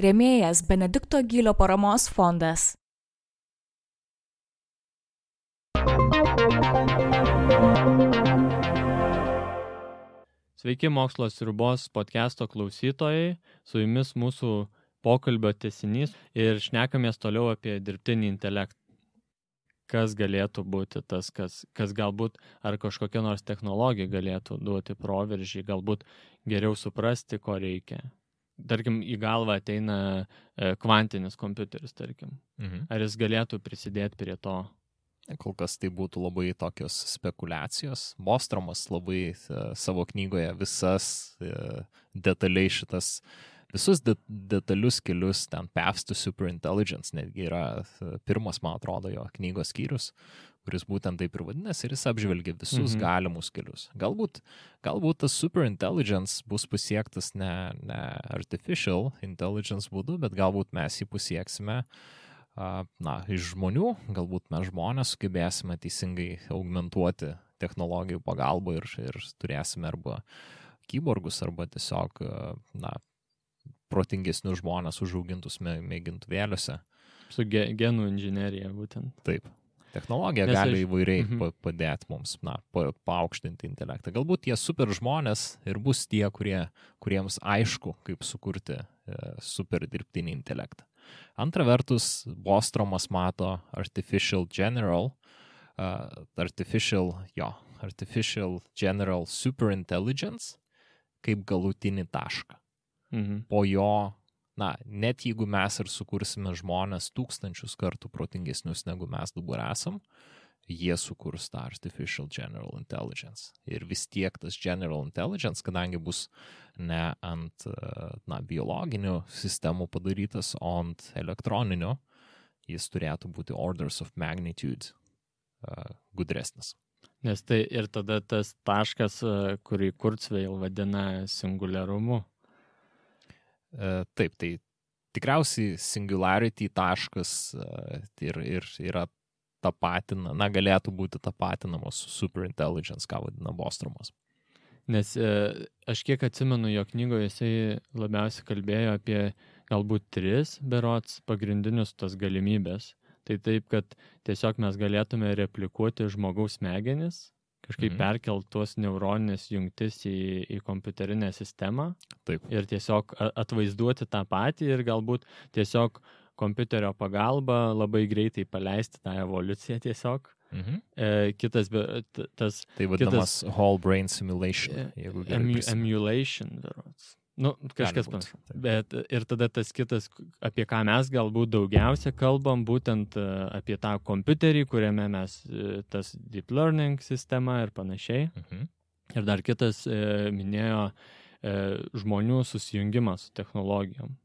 Rėmėjas Benedikto Gylio paramos fondas. Sveiki Mokslo sriubos podcast'o klausytojai, su jumis mūsų pokalbio tęsinys ir šnekamės toliau apie dirbtinį intelektą. Kas galėtų būti tas, kas galbūt ar kažkokia nors technologija galėtų duoti proveržį, galbūt geriau suprasti, ko reikia. Tarkim, į galvą ateina kvantinis kompiuteris, tarkim. Ar jis galėtų prisidėti prie to? Kol kas tai būtų labai tokios spekulacijos. Bostromas labai savo knygoje detaliai visus detalius kelius ten Paths to Superintelligence, netgi yra pirmas, man atrodo, jo knygos skyrius, kuris būtent taip ir vadinasi, ir jis apžvelgia visus galimus kelius. Galbūt tas superintelligence bus pasiektas ne artificial intelligence būdu, bet galbūt mes jį pasieksime iš žmonių, galbūt mes žmonės sugebėsime teisingai augmentuoti technologijų pagalbą ir turėsime arba kyborgus, arba tiesiog protingesnius žmonės užaugintus mėgintuvėliuose. Su genų inžinerija būtent. Taip. Technologija gali įvairiai padėti mums, paaukštinti intelektą. Galbūt tie super žmonės ir bus tie, kuriems aišku, kaip sukurti super dirbtinį intelektą. Antra vertus, Bostromas mato artificial general superintelligence kaip galutinį tašką. Po jo, net jeigu mes ir sukursime žmonės 1000 kartų protingesnius negu mes dabar esam, jie sukurs tą artificial general intelligence. Ir vis tiek tas general intelligence, kadangi bus ne ant biologinių sistemų padarytas, o ant elektroninių, jis turėtų būti orders of magnitude gudresnis. Nes tai ir tada tas taškas, kurį Kurzweil vadina singuliarumu. Taip, tai tikriausiai singularity taškas ir yra galėtų būti tapatinamos su superintelligence, ką vadina Bostromas. Nes aš kiek atsimenu, jo knygoje jisai labiausiai kalbėjo apie galbūt 3 berods pagrindinius tas galimybės. Tai taip, kad tiesiog mes galėtume replikuoti žmogaus smegenis, kažkaip perkelt tuos neuroninės jungtis į kompiuterinę sistemą. Taip. Ir tiesiog atvaizduoti tą patį ir galbūt tiesiog kompiuterio pagalba labai greitai paleisti tą evoliuciją tiesiog. Kitas, tai vadinamas whole brain simulation. Emulation, berods. Kažkas panašu. Bet ir tada tas kitas, apie ką mes galbūt daugiausia kalbam, būtent apie tą kompiuterį, kuriame mes tas deep learning sistema ir panašiai. Ir dar kitas minėjo žmonių susijungimą su technologijom.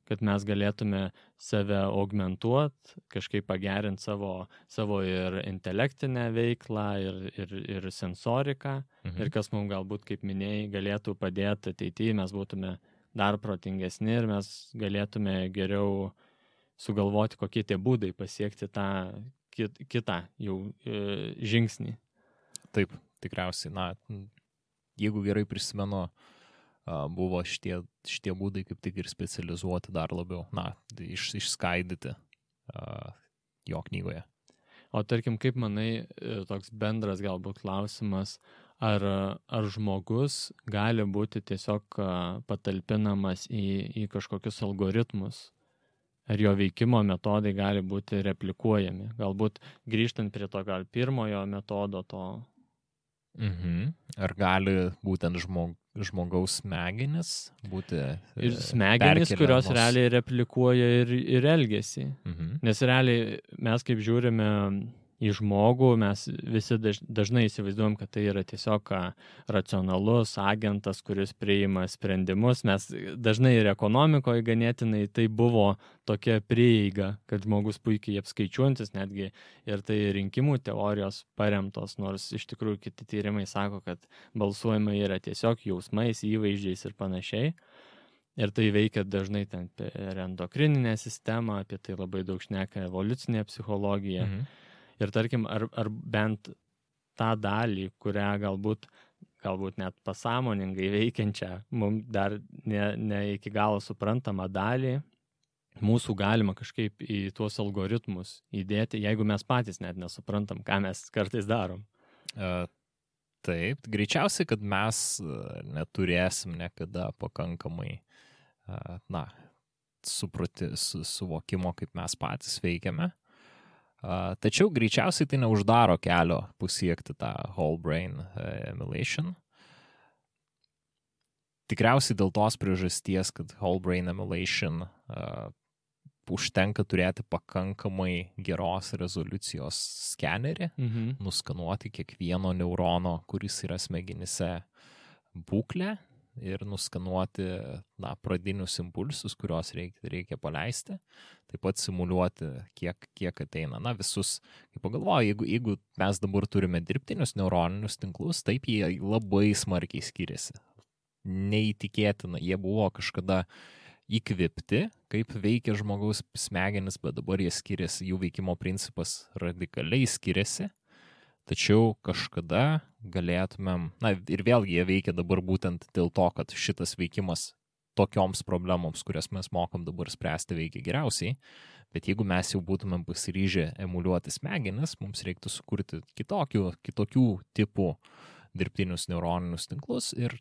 Kad mes galėtume save augmentuoti, kažkaip pagerinti savo ir intelektinę veiklą, ir sensoriką. Ir kas mums galbūt, kaip minėjai, galėtų padėti ateityje, mes būtume dar protingesni ir mes galėtume geriau sugalvoti, kokie tie būdai pasiekti tą kitą jau žingsnį. Taip, tikriausiai. Jeigu gerai prisimenu, buvo šitie būdai kaip tik ir specializuoti dar labiau, išskaidyti jo knygoje. O tarkim, kaip manai, toks bendras galbūt klausimas, ar žmogus gali būti tiesiog patalpinamas į kažkokius algoritmus, ar jo veikimo metodai gali būti replikuojami, galbūt grįžtant prie to gal pirmojo metodo to. Ar gali būtent žmogaus smegenis būti ir smegenis, kurios realiai replikuoja ir elgesį. Nes realiai mes kaip žiūrime į žmogų, mes visi dažnai įsivaizduojam, kad tai yra tiesiog racionalus agentas, kuris priima sprendimus. Mes dažnai ir ekonomikoje ganėtinai tai buvo tokia prieiga, kad žmogus puikiai apskaičiuojantis, netgi ir tai rinkimų teorijos paremtos, nors iš tikrųjų kiti tyrimai sako, kad balsuojama yra tiesiog jausmais, įvaizdžiais ir panašiai. Ir tai veikia dažnai ten per endokrininę sistemą, apie tai labai daug šneka evoliucinė psichologija. Ir tarkim, ar bent tą dalį, kurią galbūt galbūt net pasąmoningai veikiančią, mums dar ne iki galo suprantamą dalį, mūsų galima kažkaip į tuos algoritmus įdėti, jeigu mes patys net nesuprantam, ką mes kartais darom. Taip, greičiausiai, kad mes neturėsim niekada pakankamai suvokimo, kaip mes patys veikiame. Tačiau greičiausiai tai neuždaro kelio pasiekti tą whole brain emulation. Tikriausiai dėl tos priežasties, kad whole brain emulation užtenka turėti pakankamai geros rezoliucijos skenerį, nuskanuoti kiekvieno neurono, kuris yra smegenyse, būklę ir nuskanuoti pradinius impulsus, kuriuos reikia paleisti, taip pat simuliuoti, kiek ateina. Visus, kaip pagalvoju, jeigu mes dabar turime dirbtinius neuroninius tinklus, taip jie labai smarkiai skiriasi. Neįtikėtina, jie buvo kažkada įkvėpti, kaip veikia žmogaus smegenis, bet dabar jie skiriasi, jų veikimo principas radikaliai skiriasi. Tačiau kažkada galėtumėm, ir vėlgi jie veikia dabar būtent dėl to, kad šitas veikimas tokioms problemoms, kurias mes mokam dabar spręsti, veikia geriausiai, bet jeigu mes jau būtumėm pasiryžę emuliuoti smegenis, mums reiktų sukurti kitokių tipų dirbtinius neuroninius tinklus ir,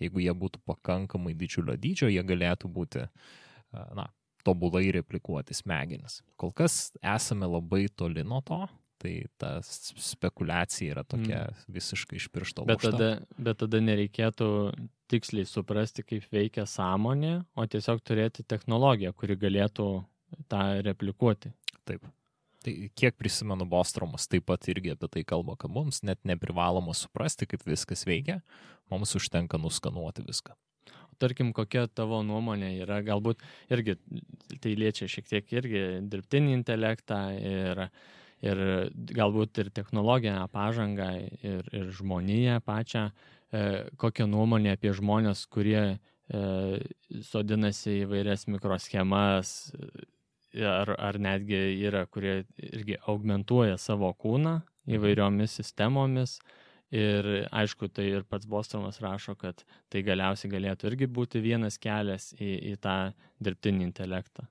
jeigu jie būtų pakankamai didžiulio dydžio, jie galėtų būti, tobulai replikuoti smegenis. Kol kas esame labai toli nuo to, tai ta spekulacija yra tokia visiškai iš piršto laužta. Bet tada nereikėtų tiksliai suprasti, kaip veikia sąmonė, o tiesiog turėti technologiją, kuri galėtų tą replikuoti. Taip. Tai kiek prisimenu, Bostromas taip pat irgi apie tai kalba, kad mums net neprivaloma suprasti, kaip viskas veikia, mums užtenka nuskanuoti viską. Tarkim, kokia tavo nuomonė yra, galbūt irgi tai liečia šiek tiek irgi dirbtinį intelektą ir galbūt ir technologinę pažangą ir žmoniją pačią, kokią nuomonę apie žmonės, kurie sodinasi įvairias mikroschemas ar netgi yra, kurie irgi augmentuoja savo kūną įvairiomis sistemomis. Ir aišku, tai ir pats Bostromas rašo, kad tai galiausiai galėtų irgi būti vienas kelias į tą dirbtinį intelektą.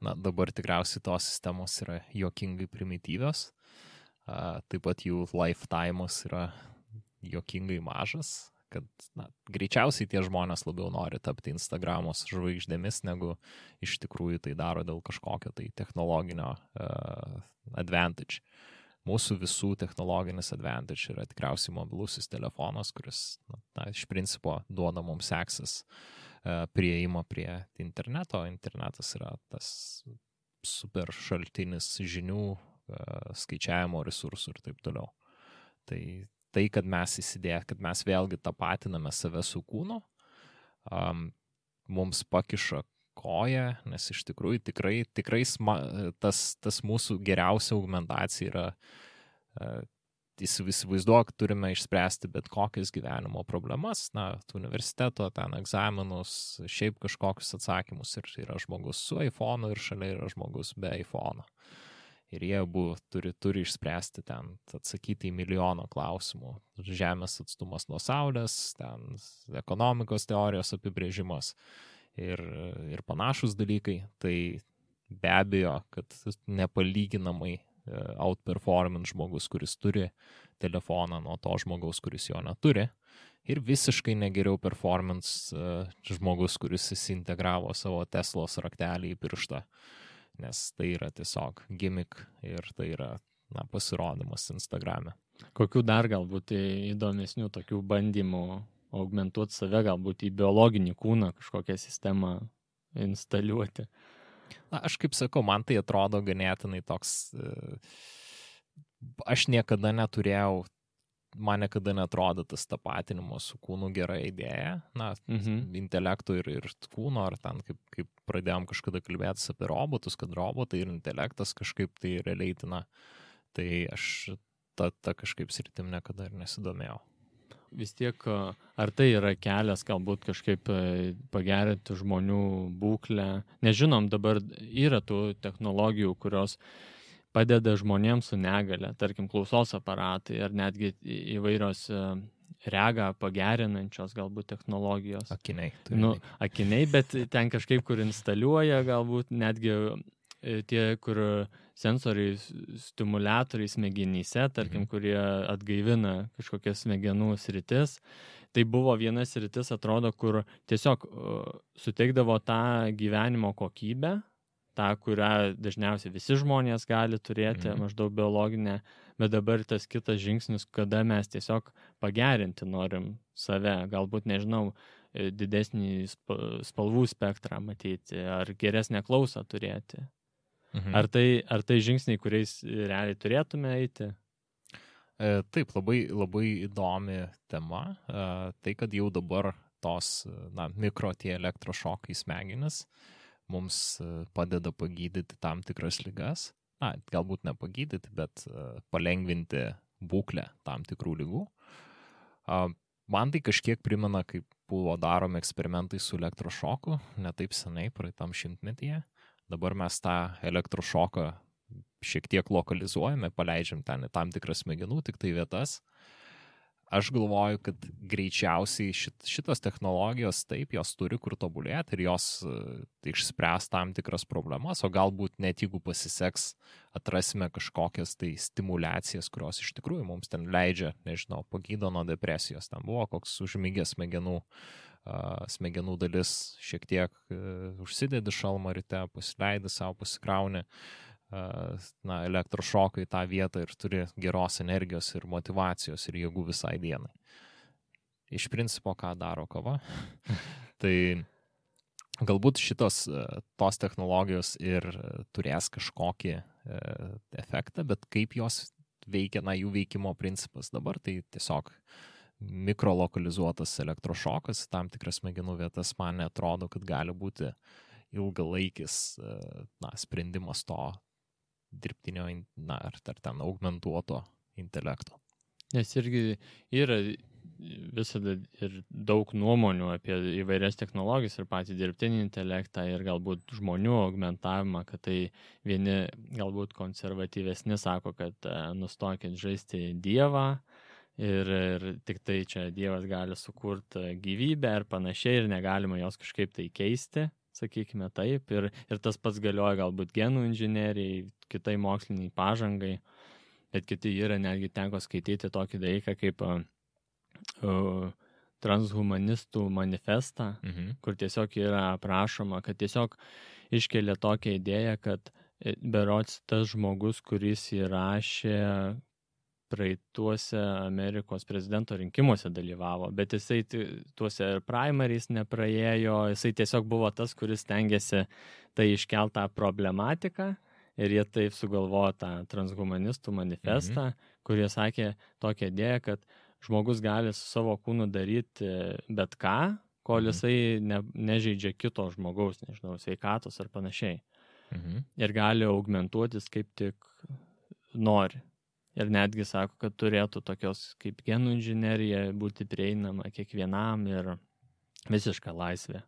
Dabar tikriausiai tos sistemos yra juokingai primityvios, taip pat jų lifetime'as yra juokingai mažas, kad greičiausiai tie žmonės labiau nori tapti Instagramos žvaigždėmis, negu iš tikrųjų tai daro dėl kažkokio tai technologinio advantage. Mūsų visų technologinis advantage yra tikriausiai mobilusis telefonas, kuris iš principo duoda mums access prieimą prie interneto. Internetas yra tas super šaltinis žinių, skaičiavimo resursų ir taip toliau. Tai kad mes kad mes vėlgi tapatiname save su kūnu, mums pakiša koją, nes iš tikrųjų tikrai tas mūsų geriausia augmentacija yra įsivaizduok, turime išspręsti bet kokias gyvenimo problemas, universiteto, ten egzaminus, šiaip kažkokius atsakymus ir yra žmogus su iPhone'u ir šalia yra žmogus be iPhone'o. Ir jie abu turi išspręsti ten, atsakyti į milijoną klausimų. Žemės atstumas nuo Saulės, ten ekonomikos teorijos apibrėžimas ir panašus dalykai. Tai be abejo, kad nepalyginamai outperformint žmogus, kuris turi telefoną nuo to žmogaus, kuris jo neturi. Ir visiškai negeriau performance žmogus, kuris įsintegravo savo Teslos raktelį į pirštą. Nes tai yra tiesiog gimmick ir tai yra pasirodymas Instagrame. Kokių dar galbūt įdomesnių tokių bandymų augmentuoti save, galbūt į biologinį kūną kažkokią sistemą instaliuoti? Aš kaip sakau, man tai atrodo ganėtinai toks, aš niekada neturėjau, man niekada netrodo tas tapatinimo su kūnu gera idėja, intelektų ir kūno, ar ten kaip pradėjom kažkada kalbėtis apie robotus, kad robotai ir intelektas kažkaip tai releitina, tai aš ta kažkaip sritim niekada ir nesidomėjau. Vis tiek, ar tai yra kelias galbūt kažkaip pagerinti žmonių būklę? Nežinom, dabar yra tų technologijų, kurios padeda žmonėms su negale, tarkim klausos aparatai ar netgi įvairios regą pagerinančios galbūt technologijos. Akiniai. Akiniai, bet ten kažkaip, kur instaliuoja galbūt netgi tie, kur sensoriai, stimuliatoriai smegenyse, tarkim, kurie atgaivina kažkokias smegenų sritis. Tai buvo viena sritis, atrodo, kur tiesiog suteikdavo tą gyvenimo kokybę, tą, kurią dažniausiai visi žmonės gali turėti, maždaug biologinę, bet dabar tas kitas žingsnis, kada mes tiesiog pagerinti norim save, galbūt, nežinau, didesnį spalvų spektrą matyti, ar geresnę klausą turėti. Ar tai žingsniai, kuriais realiai turėtume eiti? Taip, labai įdomi tema. Tai, kad jau dabar tos mikro tie elektrošokai smegenis mums padeda pagydyti tam tikras ligas. Galbūt ne pagydyti, bet palengvinti būklę tam tikrų ligų. Man tai kažkiek primena, kaip buvo daromi eksperimentai su elektrošoku, ne taip senai, praeitam šimtmetyje. Dabar mes tą elektrošoką šiek tiek lokalizuojame, paleidžiam ten į tam tikras smegenų, tik tai vietas. Aš galvoju, kad greičiausiai šitos technologijos taip, jos turi kur tobulėti ir jos išspręs tam tikras problemas, o galbūt net jeigu pasiseks, atrasime kažkokias tai stimulacijas, kurios iš tikrųjų mums ten leidžia, nežinau, pagydo nuo depresijos. Ten buvo koks užmigęs smegenų dalis, šiek tiek užsidedi šalmą ryte, pasileidi savo, pasikrauni elektrošoką į tą vietą ir turi geros energijos ir motyvacijos ir jėgų visai dienai. Iš principo, ką daro kava? Tai galbūt tos technologijos ir turės kažkokį efektą, bet kaip jos veikia, jų veikimo principas dabar, tai tiesiog mikrolokalizuotas elektrošokas, tam tikras smegenų vietas, man neatrodo, kad gali būti ilgalaikis sprendimas to dirbtinio, ar ten augmentuoto intelekto. Nes irgi yra visada ir daug nuomonių apie įvairias technologijas ir patį dirbtinį intelektą ir galbūt žmonių augmentavimą, kad tai vieni galbūt konservatyvesni sako, kad nustokit žaisti Dievą ir tik tai čia Dievas gali sukurti gyvybę ir panašiai ir negalima jos kažkaip tai keisti. Sakykime taip, ir tas pats galioja galbūt genų inžinerijai, kitai moksliniai pažangai, bet kiti yra netgi teko skaityti tokį dalyką kaip transhumanistų manifestą, kur tiesiog yra aprašoma, kad tiesiog iškelia tokią idėją, kad berods tas žmogus, kuris įrašė praeituose Amerikos prezidento rinkimuose dalyvavo, bet jisai tuose primaries nepraėjo, jisai tiesiog buvo tas, kuris stengiasi tai iškeltą problematiką ir jie taip sugalvojo tą transhumanistų manifestą, kurie sakė tokią idėją, kad žmogus gali su savo kūnu daryti bet ką, kol jisai nežeidžia kito žmogaus, nežinau, sveikatos ar panašiai. Ir gali augmentuotis kaip tik nori. Ir netgi sako, kad turėtų tokios kaip genų inžinerija būti prieinama kiekvienam ir visiška laisvė.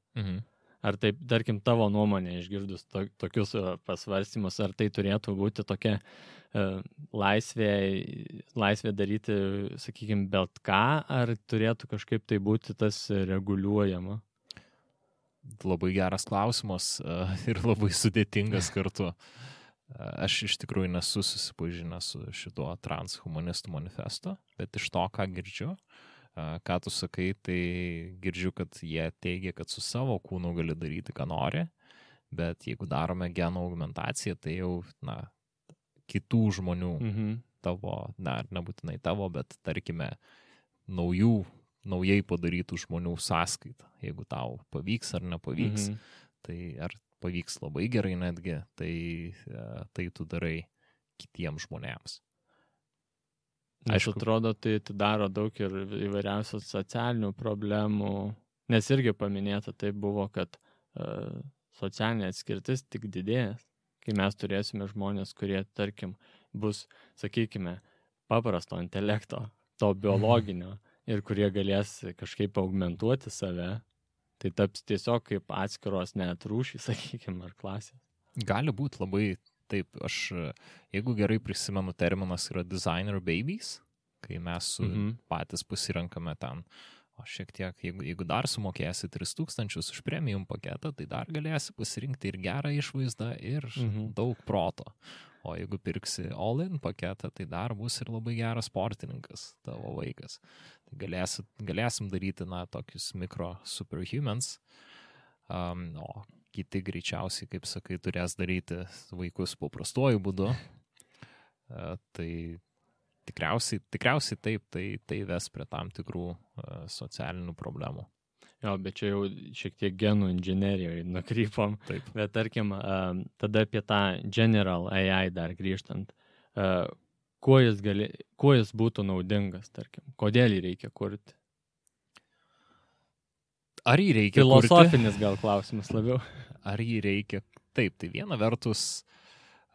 Ar taip, tarkim, tavo nuomonė išgirdus tokius pasvarstymus, ar tai turėtų būti tokia laisvė daryti, sakykime, bet ką, ar turėtų kažkaip tai būti tas reguliuojama? Labai geras klausimas ir labai sudėtingas kartu. Aš iš tikrųjų nesu susipažinęs su šituo transhumanistų manifesto, bet iš to, ką girdžiu, ką tu sakai, tai girdžiu, kad jie teigia, kad su savo kūnu gali daryti, ką nori, bet jeigu darome genų augmentaciją, tai jau, kitų žmonių, tavo, nebūtinai tavo, bet tarkime, naujai padarytų žmonių sąskaitą, jeigu tau pavyks ar nepavyks, tai ar pavyks labai gerai netgi, tai tu darai kitiems žmonėms. Aišku, atrodo, tai daro daug ir įvairiausių socialinių problemų, nes irgi paminėta tai buvo, kad socialinė atskirtis tik didės, kai mes turėsime žmonės, kurie, tarkim, bus, sakykime, paprasto intelekto, to biologinio, ir kurie galės kažkaip augmentuoti save. Tai taps tiesiog kaip atskiros net rūšys, sakykime, ar klasės. Gali būti labai taip. Jeigu gerai prisimenu, terminas yra designer babies, kai mes patys pasirenkame ten. O šiek tiek, jeigu dar sumokėsi 3000 už premium paketą, tai dar galėsi pasirinkti ir gerą išvaizdą, ir daug proto. O jeigu pirksi all-in paketą, tai dar bus ir labai geras sportininkas tavo vaikas. Tai galėsim daryti, tokius mikro superhumans, o kiti greičiausiai, kaip sakai, turės daryti vaikus paprastuoju būdu. Tai tikriausiai taip, tai ves prie tam tikrų socialinių problemų. Jo, bet čia jau šiek tiek genų inžinerijoje nukrypom. Taip. Bet tarkim, tada apie tą General AI dar grįžtant, kuo jis būtų naudingas, tarkim, kodėl jį reikia kurti? Ar jį reikia Filosofinis gal klausimas labiau. Ar jį reikia? Taip, tai viena vertus,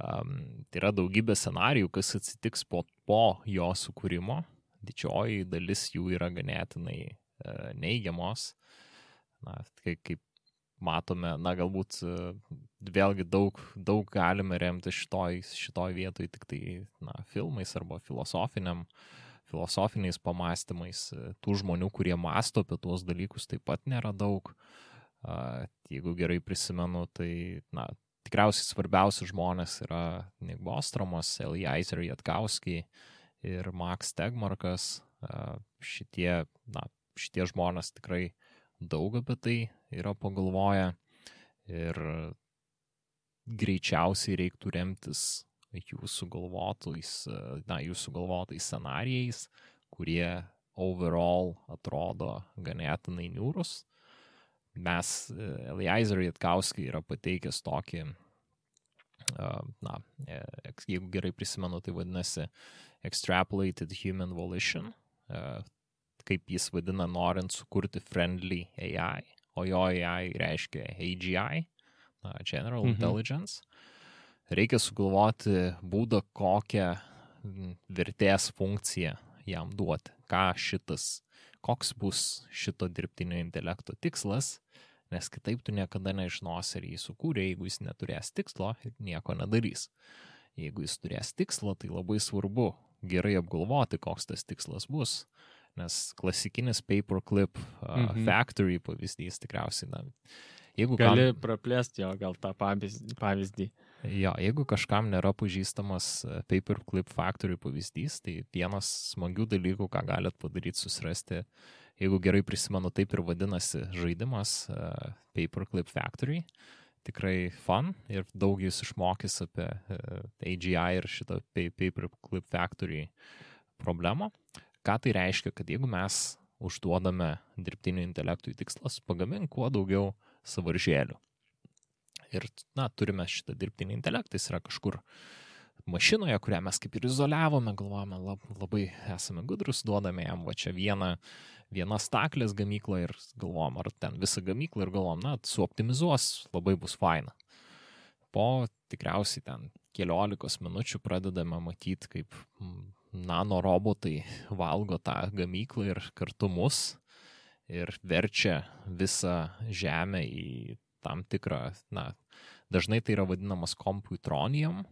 tai yra daugybė scenarijų, kas atsitiks po jo sukūrimo. Didžioji dalis jų yra ganėtinai neigiamos. Kaip matome, gal,būt vėlgi daug galime remti šitoj vietoj tik tai filmais arba filosofiniais pamastymais. Tų žmonių, kurie mąsto apie tuos dalykus, taip pat nėra daug. Jeigu gerai prisimenu, tai tikriausiai svarbiausi žmonės yra Nick Bostomas, Eliezer Yudkowsky ir Max Tegmarkas. Šitie žmonės tikrai daug apie tai yra pagalvoję ir greičiausiai reiktų remtis jūsų galvotais scenarijais, kurie overall atrodo ganėtinai niūrus. Eliezer Yudkowsky yra pateikęs tokį, jeigu gerai prisimenu, tai vadinasi Extrapolated Human Volition, kaip jis vadina, norint sukurti friendly AI, o jo AI reiškia AGI, General Intelligence. Reikia sugalvoti būdą, kokią vertės funkciją jam duoti, koks bus šito dirbtinio intelekto tikslas, nes kitaip tu niekada nežinosi, ar jį sukūrė, jeigu jis neturės tikslo ir nieko nedarys. Jeigu jis turės tikslo, tai labai svarbu gerai apgalvoti, koks tas tikslas bus. Nes klasikinis paperclip factory pavyzdys tikriausiai, gali praplėsti jo gal tą pavyzdį. Jo, jeigu kažkam nėra pažįstamas paperclip factory pavyzdys, tai vienas smagių dalykų, ką galit padaryti, susirasti, jeigu gerai prisimenu, taip ir vadinasi žaidimas Paperclip Factory. Tikrai fun ir daug jūs išmokys apie AGI ir šitą Paperclip Factory problemą. Ką tai reiškia, kad jeigu mes užduodame dirbtinio intelektui tikslas, pagamink kuo daugiau sąvaržėlių. Ir, turime šitą dirbtinį intelektą, jis yra kažkur mašinoje, kurią mes kaip ir izoliavome, galvojame, labai esame gudrus, duodame jam va čia vieną staklės gamyklą ir galvojam, ar ten visą gamyklą ir galvojam, suoptimizuos, labai bus faina. Po tikriausiai ten 15 minučių pradedame matyti, kaip nanorobotai valgo tą gamyklą ir kartu mus ir verčia visą žemę į tam tikrą, dažnai tai yra vadinamas komputronium,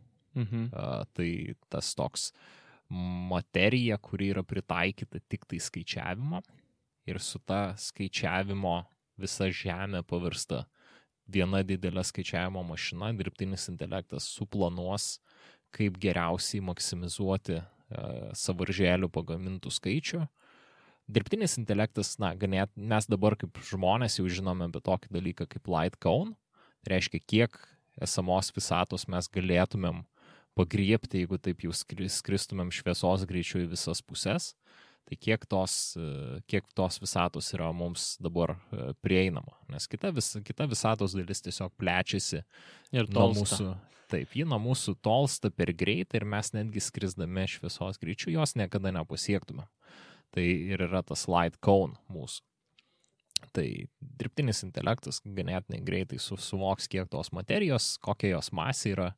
tai tas toks materija, kuri yra pritaikyta tik tai skaičiavimo ir su ta skaičiavimo visa žemė pavirsta viena didelė skaičiavimo mašina, dirbtinis intelektas suplanuos, kaip geriausiai maksimizuoti sąvaržėlių pagamintų skaičių. Dirbtinis intelektas, mes dabar kaip žmonės jau žinome apie tokį dalyką kaip light cone, tai reiškia, kiek esamos visatos mes galėtumėm pagriebti, jeigu taip jau skristumėm šviesos greičiu į visas pusės, tai kiek tos visatos yra mums dabar prieinama, nes kita visatos dalis tiesiog plečiasi ir nuo mūsų. Taip, ji nuo mūsų tolsta per greitai ir mes netgi skrisdami šviesos greičiu jos niekada nepasiektume. Tai ir yra tas light cone mūsų. Tai dirbtinis intelektas ganėtinai greitai suvoks, kiek tos materijos, kokia jos masė yra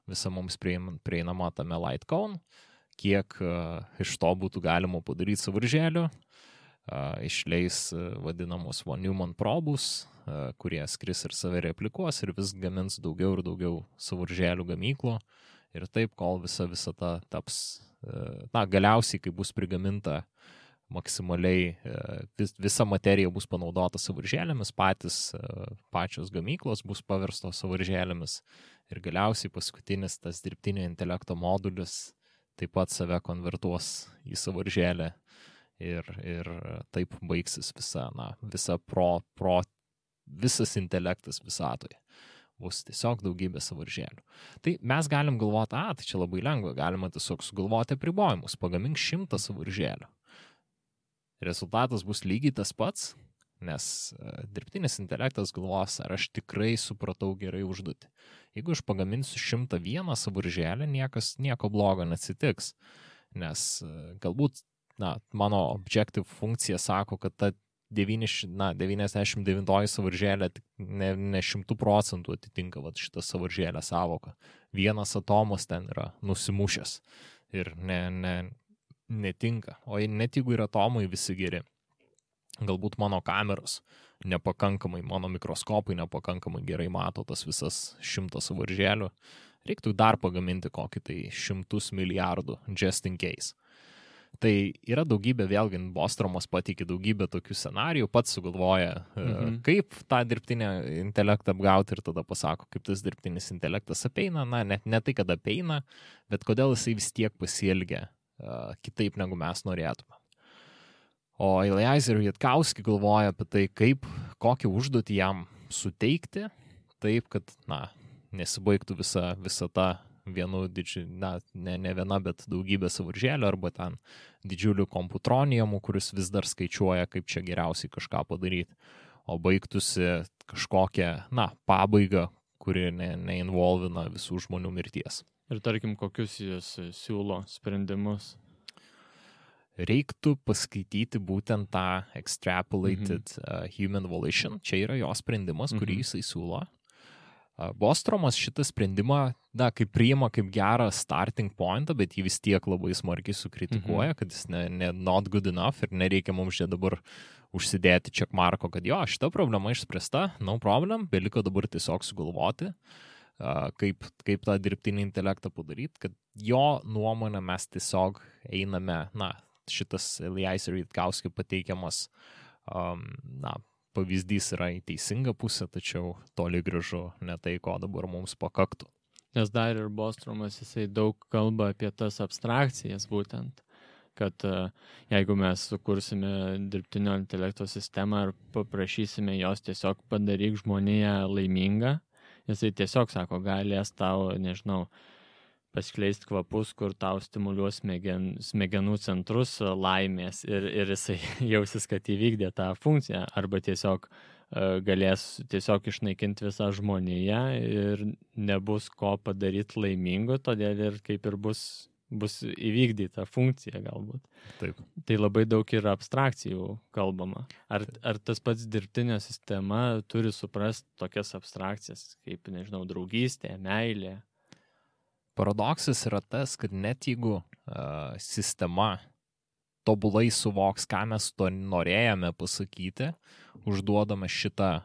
visa mums prieinama tame light cone, kiek iš to būtų galima padaryti sąvaržėlių, išleis vadinamus von Neumann probus, kurie skris ir save replikuos ir vis gamins daugiau ir daugiau sąvaržėlių gamyklų ir taip, kol visa visata taps galiausiai, kai bus prigaminta maksimaliai, visa materija bus panaudota sąvaržėlėmis, pačios gamyklos bus paverstos sąvaržėlėmis ir galiausiai paskutinis tas dirbtinio intelekto modulis taip pat save konvertuos į sąvaržėlę ir taip baigsis visas intelektas visatoje. Bus tiesiog daugybė sąvaržėlių. Tai mes galim galvoti, tai čia labai lengva, galima tiesiog sugalvoti apribojimus, pagamink 100 sąvaržėlių. Rezultatas bus lygiai tas pats, nes dirbtinis intelektas galvos, ar aš tikrai supratau gerai užduotį. Jeigu aš pagaminsiu 101 sąvaržėlę, nieko blogo neatsitiks, nes galbūt mano objective funkcija sako, kad ta 99 sąvaržėlė ne 100% atitinka šitą sąvaržėlę savoką. Vienas atomas ten yra nusimušęs ir netinka. O net jeigu yra atomai visi geri, galbūt mano kameros nepakankamai, mano mikroskopai nepakankamai gerai mato tas visas 100 sąvaržėlių, reiktų dar pagaminti kokį tai 100 milijardų just in case. Tai yra daugybė, vėlgi, Bostromas pateikė daugybę tokių scenarijų, pats sugalvoja, kaip tą dirbtinę intelektą apgauti ir tada pasako, kaip tas dirbtinis intelektas apeina, ne tai, kad apeina, bet kodėl jisai vis tiek pasielgia kitaip, negu mes norėtume. O Eliezer Jatkowski galvoja apie tai, kokią užduotį jam suteikti, taip, kad, nesibaigtų visa ta vienu ne viena, bet daugybė sąvaržėlių arba ten didžiulių komputronijamų, kuris vis dar skaičiuoja, kaip čia geriausiai kažką padaryti, o baigtųsi kažkokią, pabaigą, kuri neinvolvina visų žmonių mirties. Ir tarkim, kokius jis siūlo sprendimus? Reiktų paskaityti būtent tą extrapolated human volition. Čia yra jo sprendimas, kurį jisai siūlo. Bostromas šitą sprendimą, kaip priima kaip gerą starting pointą, bet jį vis tiek labai smarkiai sukritikuoja, kad jis not good enough ir nereikia mums čia dabar užsidėti checkmarko, kad šita problema išspręsta, no problem, beliko dabar tiesiog sugalvoti, kaip tą dirbtinį intelektą padaryti, kad jo nuomonę mes tiesiog einame, šitas Eliezer Jatkowski pateikiamas, pavyzdys yra į teisingą pusę, tačiau toli gražu ne tai, ko dabar mums pakaktų. Nes dar ir Bostromas, jisai daug kalba apie tas abstrakcijas būtent, kad jeigu mes sukursime dirbtinio intelekto sistemą ir paprašysime jos tiesiog padaryk žmoniją laimingą, jisai tiesiog sako, galės tau, paskleisti kvapus, kur tau stimuliuos smegenų centrus laimės ir jisai jausis, kad įvykdė tą funkciją, arba tiesiog galės tiesiog išnaikinti visą žmoniją ir nebus ko padaryti laimingo, todėl ir kaip ir bus įvykdyta funkcija galbūt. Taip. Tai labai daug yra abstrakcijų kalbama. Ar tas pats dirbtinė sistema turi suprasti tokias abstrakcijas, kaip, draugystė, meilė? Paradoksas yra tas, kad net jeigu sistema tobulai suvoks, ką mes to norėjome pasakyti, užduodame šitą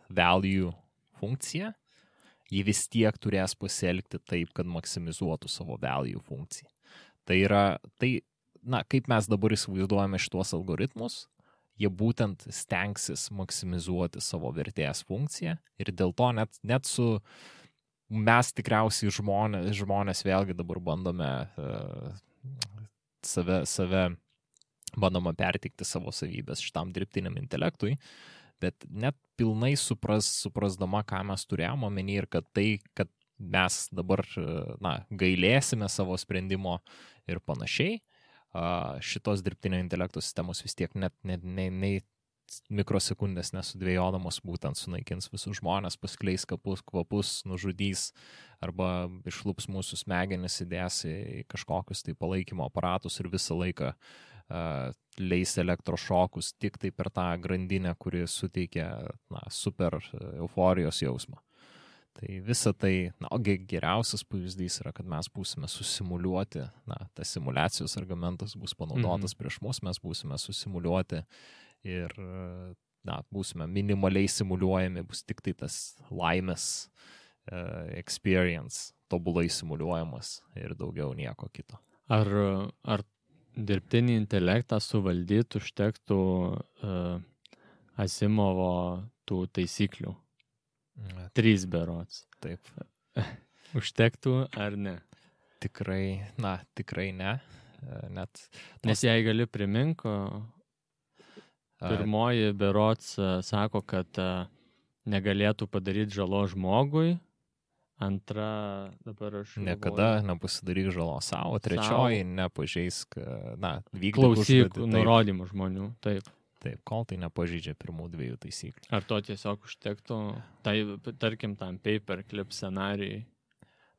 value funkciją, ji vis tiek turės pasielgti taip, kad maksimizuotų savo value funkciją. Kaip mes dabar įsivaizduojame šitos algoritmus, jie būtent stengsis maksimizuoti savo vertės funkciją ir dėl to net su mes tikriausiai žmonės vėlgi dabar bandome save bandoma perteikti savo savybės šitam dirbtiniam intelektui, bet net pilnai suprasdama, ką mes turėjome omeny ir kad mes dabar gailėsime savo sprendimo ir panašiai, šitos dirbtinio intelekto sistemos vis tiek net mikrosekundės nesudvėjodamos būtent sunaikins visus žmonės, paskleis kvapus, nužudys arba išlups mūsų smegenis, įdės į kažkokius tai palaikymo aparatus ir visą laiką leis elektrošokus tik tai per tą grandinę, kuri suteikia super euforijos jausmą. Tai visa tai, geriausias pavyzdys yra, kad mes būsime susimuliuoti, tas simulacijos argumentas bus panaudotas prieš mus, mes būsime susimuliuoti ir būsime minimaliai simuliuojami, bus tik tai tas laimės experience tobulai simuliuojamas ir daugiau nieko kito. Ar dirbtinį intelektą suvaldyti užtektų Asimovo tų taisyklių? 3 berods. Taip. Užtektų ar ne? Tikrai ne. Nes jei gali priminko, pirmoji berods sako, kad negalėtų padaryti žalos žmogui, antra, dabar aš niekada nepasidaryk žalos savo, trečioji nepažeisk, vykdyk klausyk nurodymų žmonių, taip. Taip, kol tai nepažeidžia pirmų 2 taisyklių. Ar to tiesiog užtektų, tai tarkim tam paperclip scenarijai?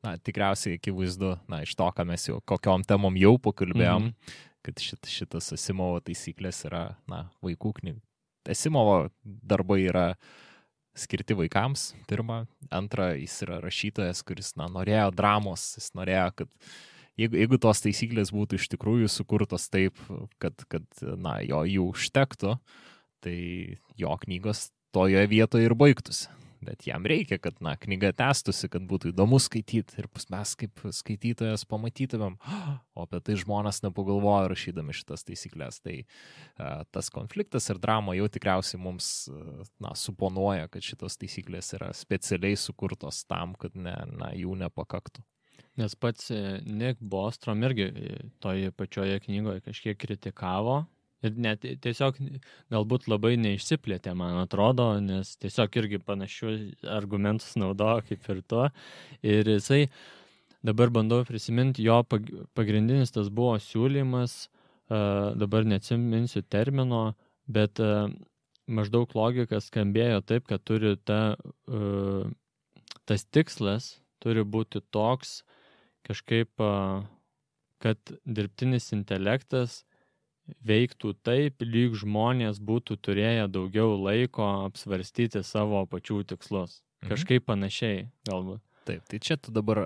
Tikriausiai akivaizdu, iš to, ką mes jau, kokiom temom jau pakalbėjom, kad šitas Asimovo taisyklės yra, vaikų knygų. Asimovo darbai yra skirti vaikams, pirma. Antra, jis yra rašytojas, kuris, norėjo dramos, jis norėjo, kad jeigu tos taisyklės būtų iš tikrųjų sukurtos taip, kad jų užtektų, tai jo knygos toje vietoje ir baigtųsi. Bet jam reikia, kad knyga tęstųsi, kad būtų įdomu skaityti ir mes kaip skaitytojas pamatytumėm, o apie tai žmonės nepagalvoja rašydami šitas taisyklės. Tai tas konfliktas ir drama jau tikriausiai mums suponuoja, kad šitos taisyklės yra specialiai sukurtos tam, kad jų nepakaktų. Nes pats Nick Bostrom irgi toje pačioje knygoje kažkiek kritikavo ir net tiesiog galbūt labai neišsiplėtė, man atrodo, nes tiesiog irgi panašių argumentus naudojo kaip ir to. Ir jisai, dabar bandau prisiminti, jo pagrindinis tas buvo siūlymas, dabar neatsiminsiu termino, bet maždaug logika skambėjo taip, kad turi tas tikslas turi būti toks, kažkaip, kad dirbtinis intelektas veiktų taip, lyg žmonės būtų turėję daugiau laiko apsvarstyti savo pačių tikslus. Kažkaip panašiai, galbūt. Taip, tai čia tu dabar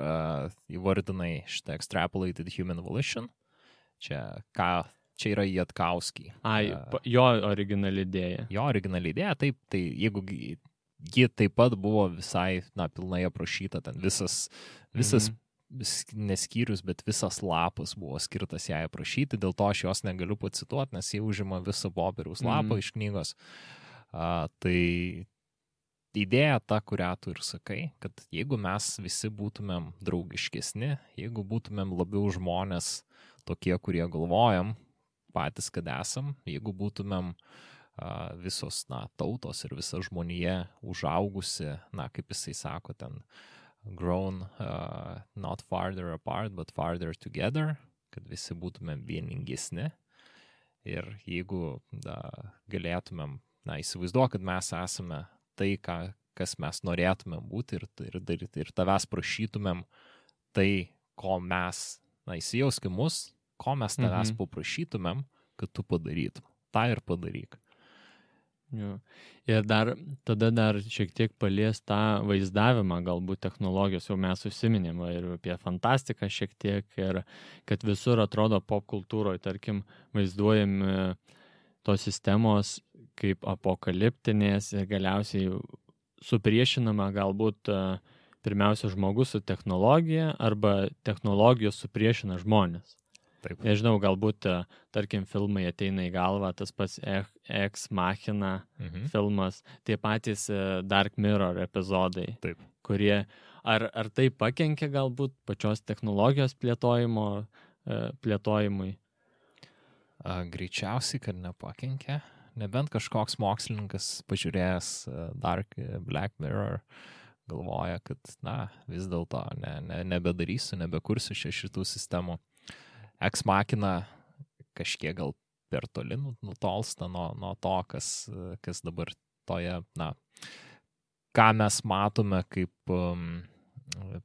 įvardinai šitą extrapolated human volition. Čia yra Jatkauski. Jo originali idėja. Jo originali idėja, taip, tai jeigu ji taip pat buvo visai, pilnai aprašyta, ten visas neskyrius, bet visas lapas buvo skirtas jai aprašyti, dėl to aš jos negaliu pacituoti, nes jie užima visą popieriaus lapą iš knygos. Tai idėja ta, kurią tu ir sakai, kad jeigu mes visi būtumėm draugiškesni, jeigu būtumėm labiau žmonės tokie, kurie galvojam patys, kad esam, jeigu būtumėm visos tautos ir visa žmonija užaugusi, kaip jisai sako ten, grown not farther apart, but farther together, kad visi būtumėm vieningesni. Ir jeigu galėtumėm, įsivaizduok, kad mes esame tai, kas mes norėtumėm būti ir tavęs prašytumėm tai, ko mes, įsijauskim mus, ko mes tavęs paprašytumėm, kad tu padarytum. Ta ir padaryk. Jo. Ir tada dar šiek tiek palies tą vaizdavimą, galbūt technologijos, jau mes užsiminėm ir apie fantastiką šiek tiek, ir kad visur atrodo pop kultūroje, tarkim, vaizduojami tos sistemos kaip apokaliptinės ir galiausiai supriešinama galbūt pirmiausia žmogus su technologija arba technologijos supriešina žmonės. Taip. Nežinau, galbūt, tarkim, filmai ateina į galvą, tas pats Ex Machina filmas, tie patys Dark Mirror epizodai, Taip. Kurie, ar tai pakenkia galbūt pačios technologijos plėtojimui? Greičiausiai, kad nepakenkia, nebent kažkoks mokslininkas pažiūrėjęs Black Mirror galvoja, kad vis dėlto nebedarysiu, nebekursiu šitų sistemų. Ex Machina kažkiek gal per toli nutolsta nuo to, kas dabar toje, ką mes matome kaip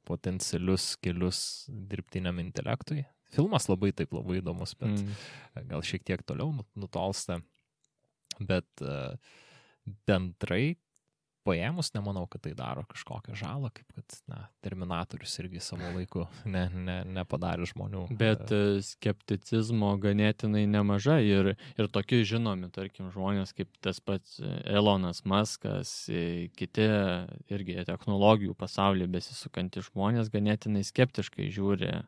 potencialius kelius dirbtiniam intelektui. Filmas labai įdomus, bet gal šiek tiek toliau nutolsta. Bet bendrai paėmus, nemanau, kad tai daro kažkokią žalą, kaip kad Terminatorius irgi savo laiku nepadarė žmonių. Bet skepticizmo ganėtinai nemažai ir tokie žinomi, tarkim, žmonės kaip tas pats Elonas Muskas, kiti irgi technologijų pasaulyje besisukantys žmonės ganėtinai skeptiškai žiūri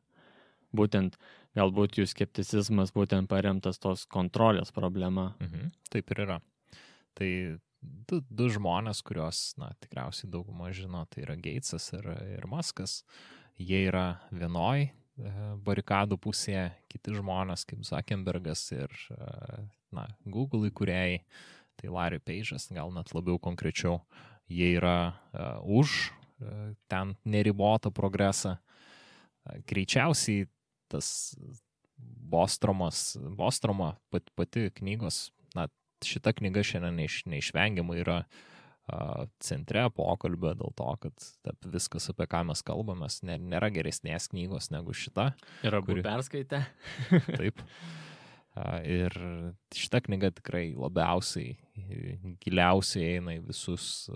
būtent galbūt jų skepticizmas būtent paremtas tos kontrolės problema. Taip ir yra. Tai du žmonės, kuriuos, tikriausiai dauguma žino, tai yra Gatesas ir Muskas. Jie yra vienoj barikadų pusėje, kiti žmonės kaip Zuckerbergas ir Google įkūrėjai, tai Larry Page'as, gal net labiau konkrečiau, jie yra už ten neribotą progresą. Greičiausiai tas Bostromo pati knygos, šita knyga šiandien neišvengiamai yra centre pokalbio dėl to, kad viskas, apie ką mes kalbamės, nėra geresnės knygos negu šita. Ir abu perskaitę. Taip. Ir šita knyga tikrai labiausiai, giliausiai eina į visus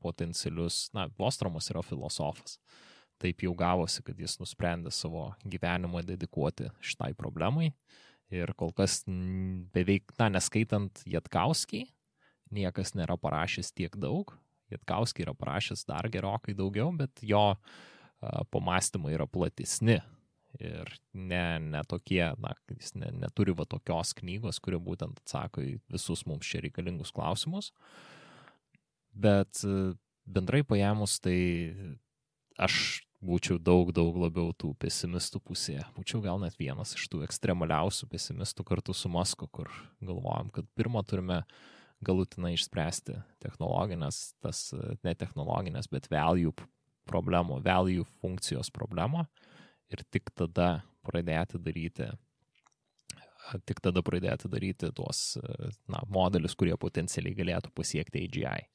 potencialius. Bostromas yra filosofas. Taip jau gavosi, kad jis nusprendė savo gyvenimą dedikuoti šitai problemai. Ir kol kas beveik, neskaitant Jatkauskį, niekas nėra parašęs tiek daug. Jatkauskį yra parašęs dar gerokai daugiau, bet jo pamąstymai yra platesni. Ir ne tokie, jis neturi tokios knygos, kuri būtent atsako į visus mums čia reikalingus klausimus. Bet bendrai paėmus, tai aš būčiau daug labiau tų pesimistų pusėje. Būčiau gal net vienas iš tų ekstremaliausių pesimistų kartu su Musku, kur galvojam, kad pirmą turime galutinai išspręsti technologinės, ne technologinės, bet value funkcijos problemą ir tik tada pradėti daryti tuos modelius, kurie potencialiai galėtų pasiekti AGI.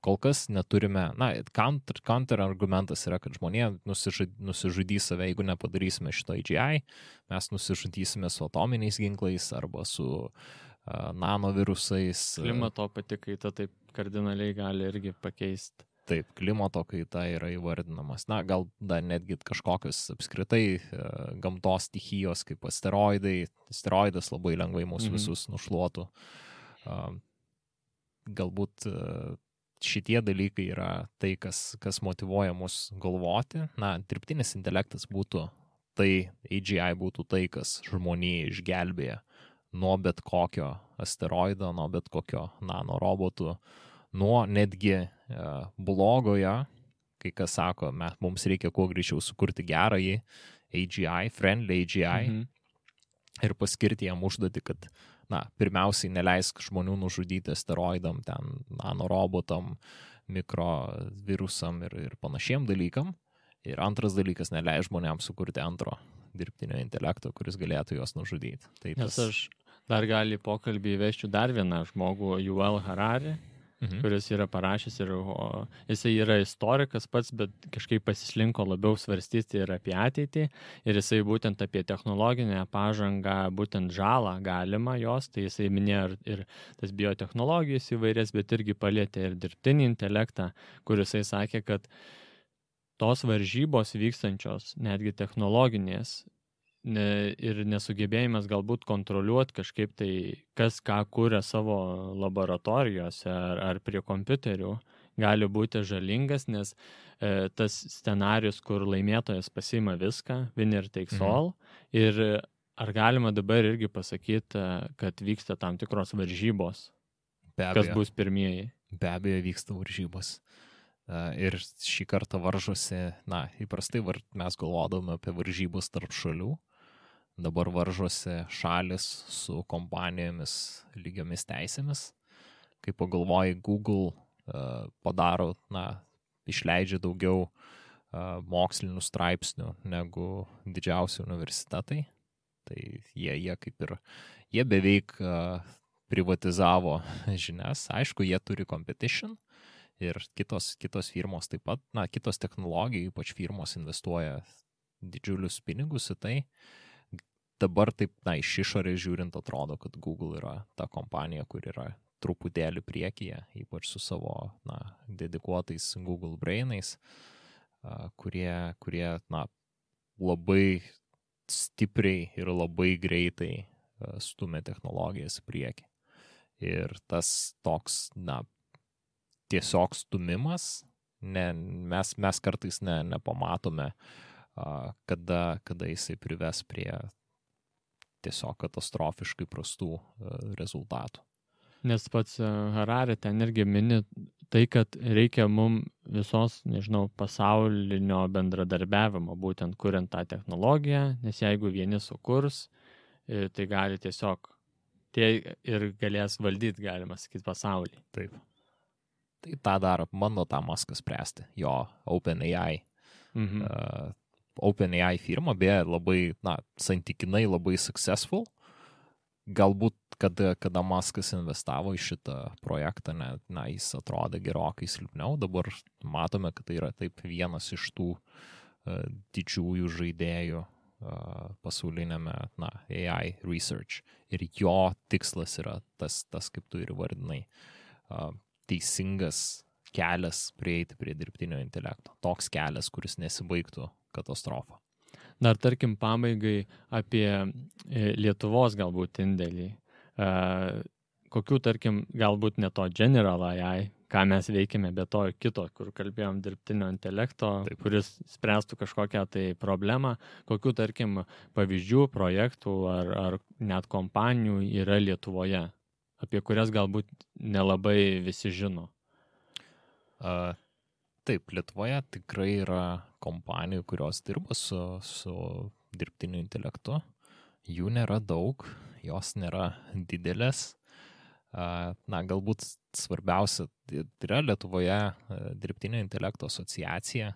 Kol kas neturime, counter argumentas yra, kad žmonė nusižudys save, jeigu nepadarysime šito AGI, mes nusižudysime su atominiais ginklais arba su nanovirusais. Klimato pati kaita taip kardinaliai gali irgi pakeisti. Taip, klimato kaita yra įvardinamas. Gal dar netgi kažkokios apskritai gamtos stichijos kaip asteroidai. Asteroidas labai lengvai mūsų visus nušluotų. Galbūt šitie dalykai yra tai, kas motyvuoja mus galvoti. Dirbtinis intelektas būtų tai, AGI būtų tai, kas žmonijai išgelbėja nuo bet kokio asteroido, nuo bet kokio nanorobotų, nuo netgi blogojo, kai kas sako, mums reikia kuo greičiau sukurti gerąjį AGI, friendly AGI ir paskirti jam užduotį, kad pirmiausiai neleisk žmonių nužudyti asteroidam, ten nanorobotam, mikrovirusam ir panašiem dalykam. Ir antras dalykas, neleis žmonėms sukurti antro dirbtinio intelekto, kuris galėtų juos nužudyti. Nes aš dar gali pokalbį įveščiau dar vieną žmogų, Yuval Harari, kuris yra parašęs ir jisai yra istorikas pats, bet kažkaip pasislinko labiau svarstyti ir apie ateitį. Ir jisai būtent apie technologinę pažangą, būtent žalą galima jos, tai jisai minėjo ir tas biotechnologijas įvairias, bet irgi palėtė ir dirbtinį intelektą, kur jisai sakė, kad tos varžybos vykstančios, netgi technologinės, ir nesugebėjimas galbūt kontroliuoti kažkaip tai, kas ką kuria savo laboratorijose ar prie kompiuterių, gali būti žalingas, nes tas scenarius, kur laimėtojas pasiima viską, winner takes all, ir ar galima dabar irgi pasakyti, kad vyksta tam tikros varžybos, kas bus pirmieji? Be abejo vyksta varžybos. Ir šį kartą varžosi, įprastai mes galvodame apie varžybos tarp šalių, dabar varžosi šalis su kompanijomis lygiomis teisėmis. Kai pagalvoji, Google padaro, išleidžia daugiau mokslinių straipsnių negu didžiausi universitetai, tai jie beveik privatizavo žinias. Aišku, jie turi competition, ir kitos firmos taip pat, kitos technologijų, ypač firmos investuoja didžiulius pinigus į tai. Dabar taip, iš išorės žiūrint, atrodo, kad Google yra ta kompanija, kur yra truputėlį priekyje, ypač su savo dedikuotais Google Brainais, kurie labai stipriai ir labai greitai stumia technologijas į priekį. Ir tas toks, tiesiog stumimas, mes kartais nepamatome, kada jisai prives prie tiesiog katastrofiškai prastų rezultatų. Nes pats Harari ten irgi mini tai, kad reikia mum visos, nežinau, pasaulinio bendradarbiavimo, būtent kuriant tą technologiją, nes jeigu vieni sukurs, tai gali tiesiog tie ir galės valdyti, galima sakyti, pasaulį. Taip. Tai tą daro, bando tą Muską spręsti, jo OpenAI. OpenAI firma, beje, labai, santykinai labai successful. Galbūt, kada Muskas investavo į šitą projektą, jis atrodė gerokai silpniau. Dabar matome, kad tai yra taip vienas iš tų didžiųjų žaidėjų pasaulinėme AI research. Ir jo tikslas yra tas kaip tu ir vardinai, teisingas kelias prieiti prie dirbtinio intelekto. Toks kelias, kuris nesibaigtų katastrofą. Dar tarkim pabaigai apie Lietuvos galbūt indėlį. Kokių tarkim galbūt ne to General AI, ką mes veikime, bet to kito, kur kalbėjom dirbtinio intelekto, Taip. Kuris spręstų kažkokią tai problemą. Kokių tarkim pavyzdžių, projektų ar net kompanijų yra Lietuvoje, apie kurias galbūt nelabai visi žino. Taip, Lietuvoje tikrai yra kompanijų, kurios dirba su dirbtiniu intelektu. Jų nėra daug, jos nėra didelės. Galbūt svarbiausia, tai yra Lietuvoje dirbtinio intelekto asociacija,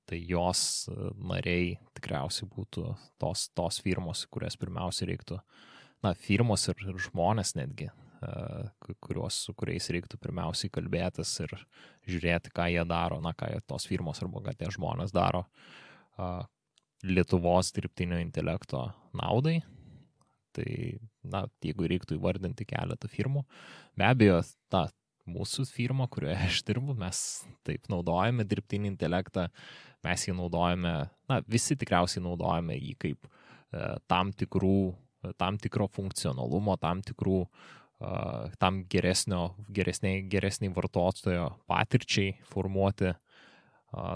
tai jos nariai tikriausiai būtų tos firmos, kurias pirmiausia reiktų, firmos ir žmonės netgi, su kuriais reiktų pirmiausiai kalbėtis ir žiūrėti, ką jie daro, ką tos firmos arba ką tie žmonės daro Lietuvos dirbtinio intelekto naudai. Tai, jeigu reiktų įvardinti keletą firmų, be abejo, mūsų firma, kurioje aš dirbu, mes taip naudojame dirbtinį intelektą, mes jį naudojame, visi tikriausiai naudojame jį kaip tam tikro funkcionalumo, tam geresniai vartotojo patirčiai formuoti,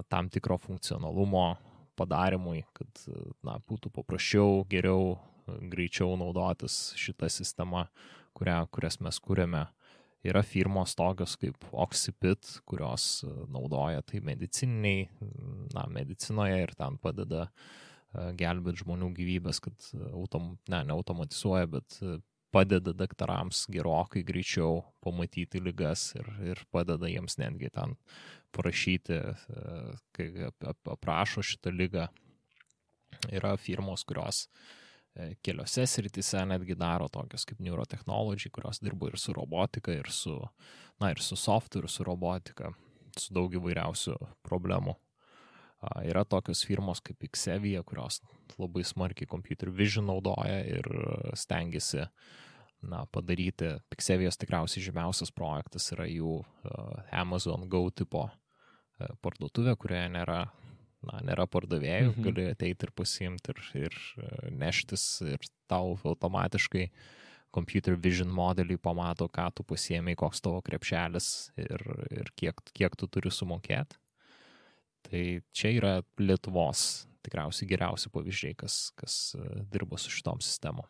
tam tikro funkcionalumo padarimui, kad būtų paprasčiau, geriau, greičiau naudotis šitą sistemą, kurias mes kūrėme. Yra firmos tokios kaip Oxipit, kurios naudoja tai medicinoje ir ten padeda gelbėti žmonių gyvybės, kad neautomatizuoja, bet padeda daktarams gerokai greičiau pamatyti ligas ir padeda jiems netgi ten parašyti, kai aprašo šitą ligą. Yra firmos, kurios keliose srityse netgi daro tokios kaip Neurotechnology, kurios dirba ir su robotika, ir su softu, ir su robotika, su daug įvairiausių problemų. Yra tokios firmos kaip Xevia, kurios labai smarkiai computer vision naudoja ir stengiasi padaryti. Xevios tikriausiai žymiausias projektas yra jų Amazon Go tipo parduotuvė, kurioje nėra pardavėjų, gali ateiti ir pasiimti ir neštis ir tau automatiškai computer vision modelį pamato, ką tu pasiėmei, koks tavo krepšelis ir kiek tu turi sumokėti. Tai čia yra Lietuvos tikriausiai geriausi pavyzdžiai, kas dirba su šitom sistemom.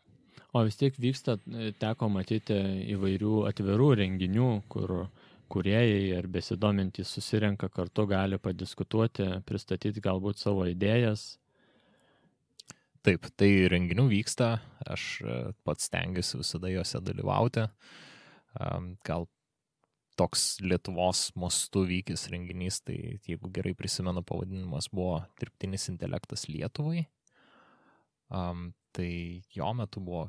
O vis tiek vyksta, teko matyti įvairių atvirų renginių, kur kūrėjai ar besidomintys susirenka kartu, gali padiskutuoti, pristatyti galbūt savo idėjas. Taip, tai renginių vyksta, aš pats stengiuosi visada juose dalyvauti. Gal toks Lietuvos mastu vykęs renginys, tai jeigu gerai prisimenu, pavadinimas buvo Dirbtinis intelektas Lietuvai. Tai jo metu buvo,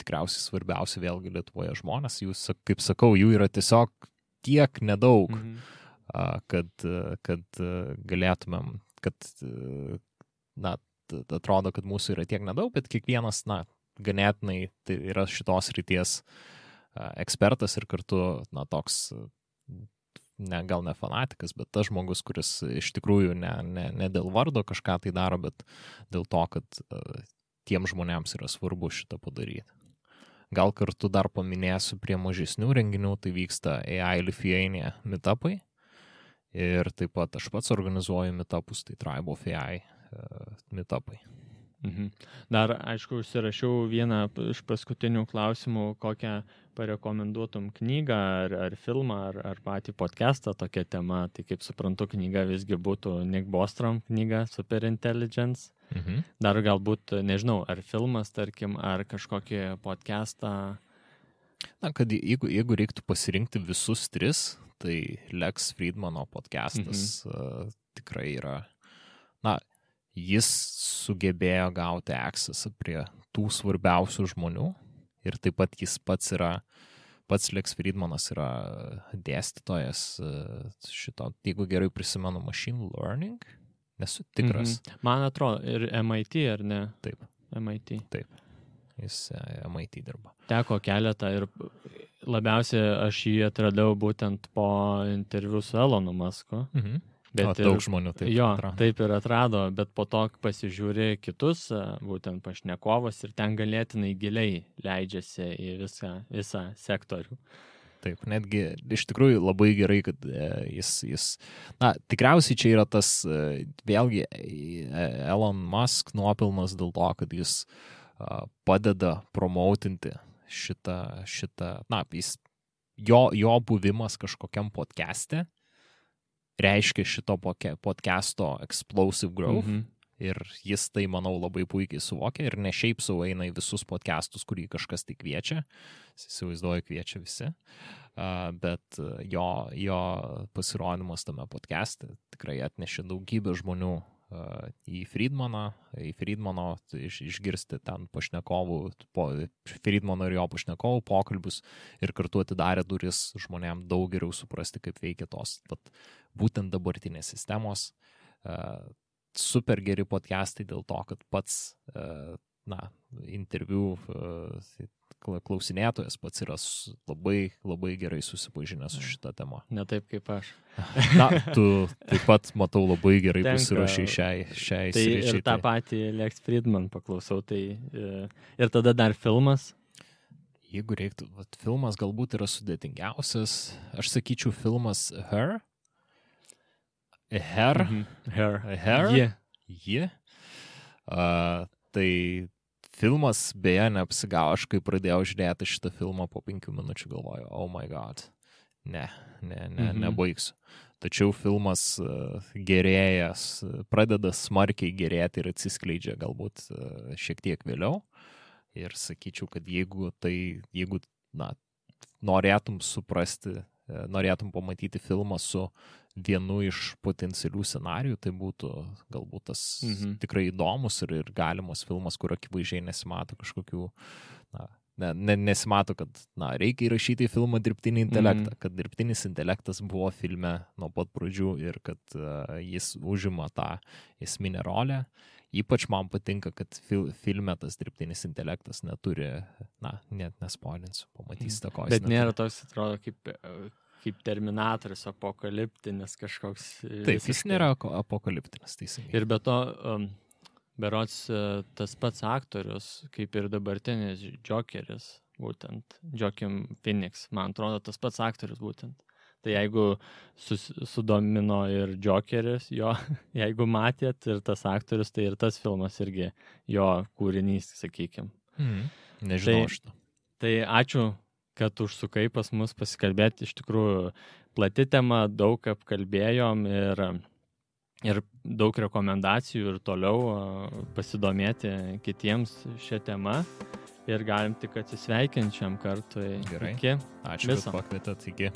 tikriausiai svarbiausia vėlgi Lietuvoje žmonės. Jūs, kaip sakau, jų yra tiesiog tiek nedaug, kad galėtumėm, atrodo, kad mūsų yra tiek nedaug, bet kiekvienas, ganėtinai tai yra šitos ryties ekspertas ir kartu, toks, gal ne fanatikas, bet tas žmogus, kuris iš tikrųjų ne dėl vardo kažką tai daro, bet dėl to, kad tiem žmonėms yra svarbu šitą padaryti. Gal kartu dar paminėsiu prie mažesnių renginių, tai vyksta AI Lithuania meetupai ir taip pat aš pats organizuoju meetupus, tai Tribe of AI meetupai. Dar, aišku, užsirašiau vieną iš paskutinių klausimų, kokią parekomenduotum knygą ar filmą ar patį podcastą tokia tema. Tai kaip suprantu, knyga visgi būtų Nick Bostrom knyga Superintelligence. Dar galbūt, nežinau, ar filmas, tarkim, ar kažkokį podcastą. Na, kad jeigu reiktų pasirinkti visus 3, tai Lex Friedmano podcastas tikrai yra, na, jis sugebėjo gauti accessą prie tų svarbiausių žmonių ir taip pat jis pats Lex Friedmanas yra dėstytojas šito, jeigu gerai prisimenu, machine learning, nesu tikras. Man atrodo, ir MIT, ar ne? Taip. MIT. Taip. Jis MIT dirba. Teko keletą ir labiausiai aš jį atradau būtent po interviu su Elonu Musku. Bet daug žmonių taip atrado. Taip ir atrado, bet po to pasižiūrė kitus, būtent pašnekovus ir ten galėtinai giliai leidžiasi į visą sektorių. Taip, netgi iš tikrųjų labai gerai, kad jis na, tikriausiai čia yra tas, vėlgi, Elon Musk nuopilnas dėl to, kad jis padeda promautinti šitą, na, jo buvimas kažkokiam podcaste reiškia šito podcasto explosive growth ir jis tai, manau, labai puikiai suvokia ir ne šiaip sau eina į visus podcastus, kurį kažkas tai kviečia, įsivaizduoju, kviečia visi, bet jo pasirodymas tame podcaste tikrai atnešė daugybę žmonių į Friedmano išgirsti ten pašnekovų, Friedmano ir jo pašnekovų pokalbius ir kartu atidarė duris žmonėm daug geriau suprasti, kaip veikia tos būtent dabartinės sistemos. Super geri podcastai dėl to, kad pats interviu klausinėtojas pats yra labai, labai gerai susipažinęs su šitą temą. Ne taip kaip aš. Na, tu taip pat, matau, labai gerai pasiruošiai šiai tai sričiai. Ir tą patį Lex Friedman paklausau. Tai, ir tada dar filmas. Jeigu reiktų, filmas galbūt yra sudėtingiausias. Aš sakyčiau filmas Her. Tai filmas beje neapsigavo, aš kai pradėjau žiūrėti šitą filmą po 5 minučių galvoju, oh my god, nebaigsiu. Tačiau filmas gerėjas, pradeda smarkiai gerėti ir atsiskleidžia galbūt šiek tiek vėliau. Ir sakyčiau, kad jeigu norėtum suprasti, norėtum pamatyti filmą su vienu iš potencialių scenarijų, tai būtų galbūt tas tikrai įdomus ir galimas filmas, kur akivaizdžiai nesimato kažkokių, nesimato, kad reikia įrašyti į filmą dirbtinį intelektą, kad dirbtinis intelektas buvo filme nuo pat pradžių ir kad jis užima tą esminę rolę. Ypač man patinka, kad filme tas dirbtinis intelektas neturi, net nespoilinsiu, pamatysite, ko jis neturi. Bet nėra toks, atrodo, kaip Terminatorius, apokaliptinis kažkoks. Taip, jis nėra apokaliptinis, teisingai. Ir be to, berods tas pats aktorius, kaip ir dabartinis Jokeris, būtent, Joaquin Phoenix, man atrodo, tas pats aktorius būtent. Tai jeigu sudomino ir Jokeris, jeigu matėt ir tas aktorius, tai ir tas filmas irgi jo kūrinys, sakykim. Nežinau šitą. Tai ačiū, kad užsukai pas mus pasikalbėti. Iš tikrųjų, plati tema, daug apkalbėjom ir daug rekomendacijų ir toliau pasidomėti kitiems šią temą. Ir galim tik atsisveikinti šiam kartui. Gerai. Iki. Ačiū, kad pakvietėt. Iki.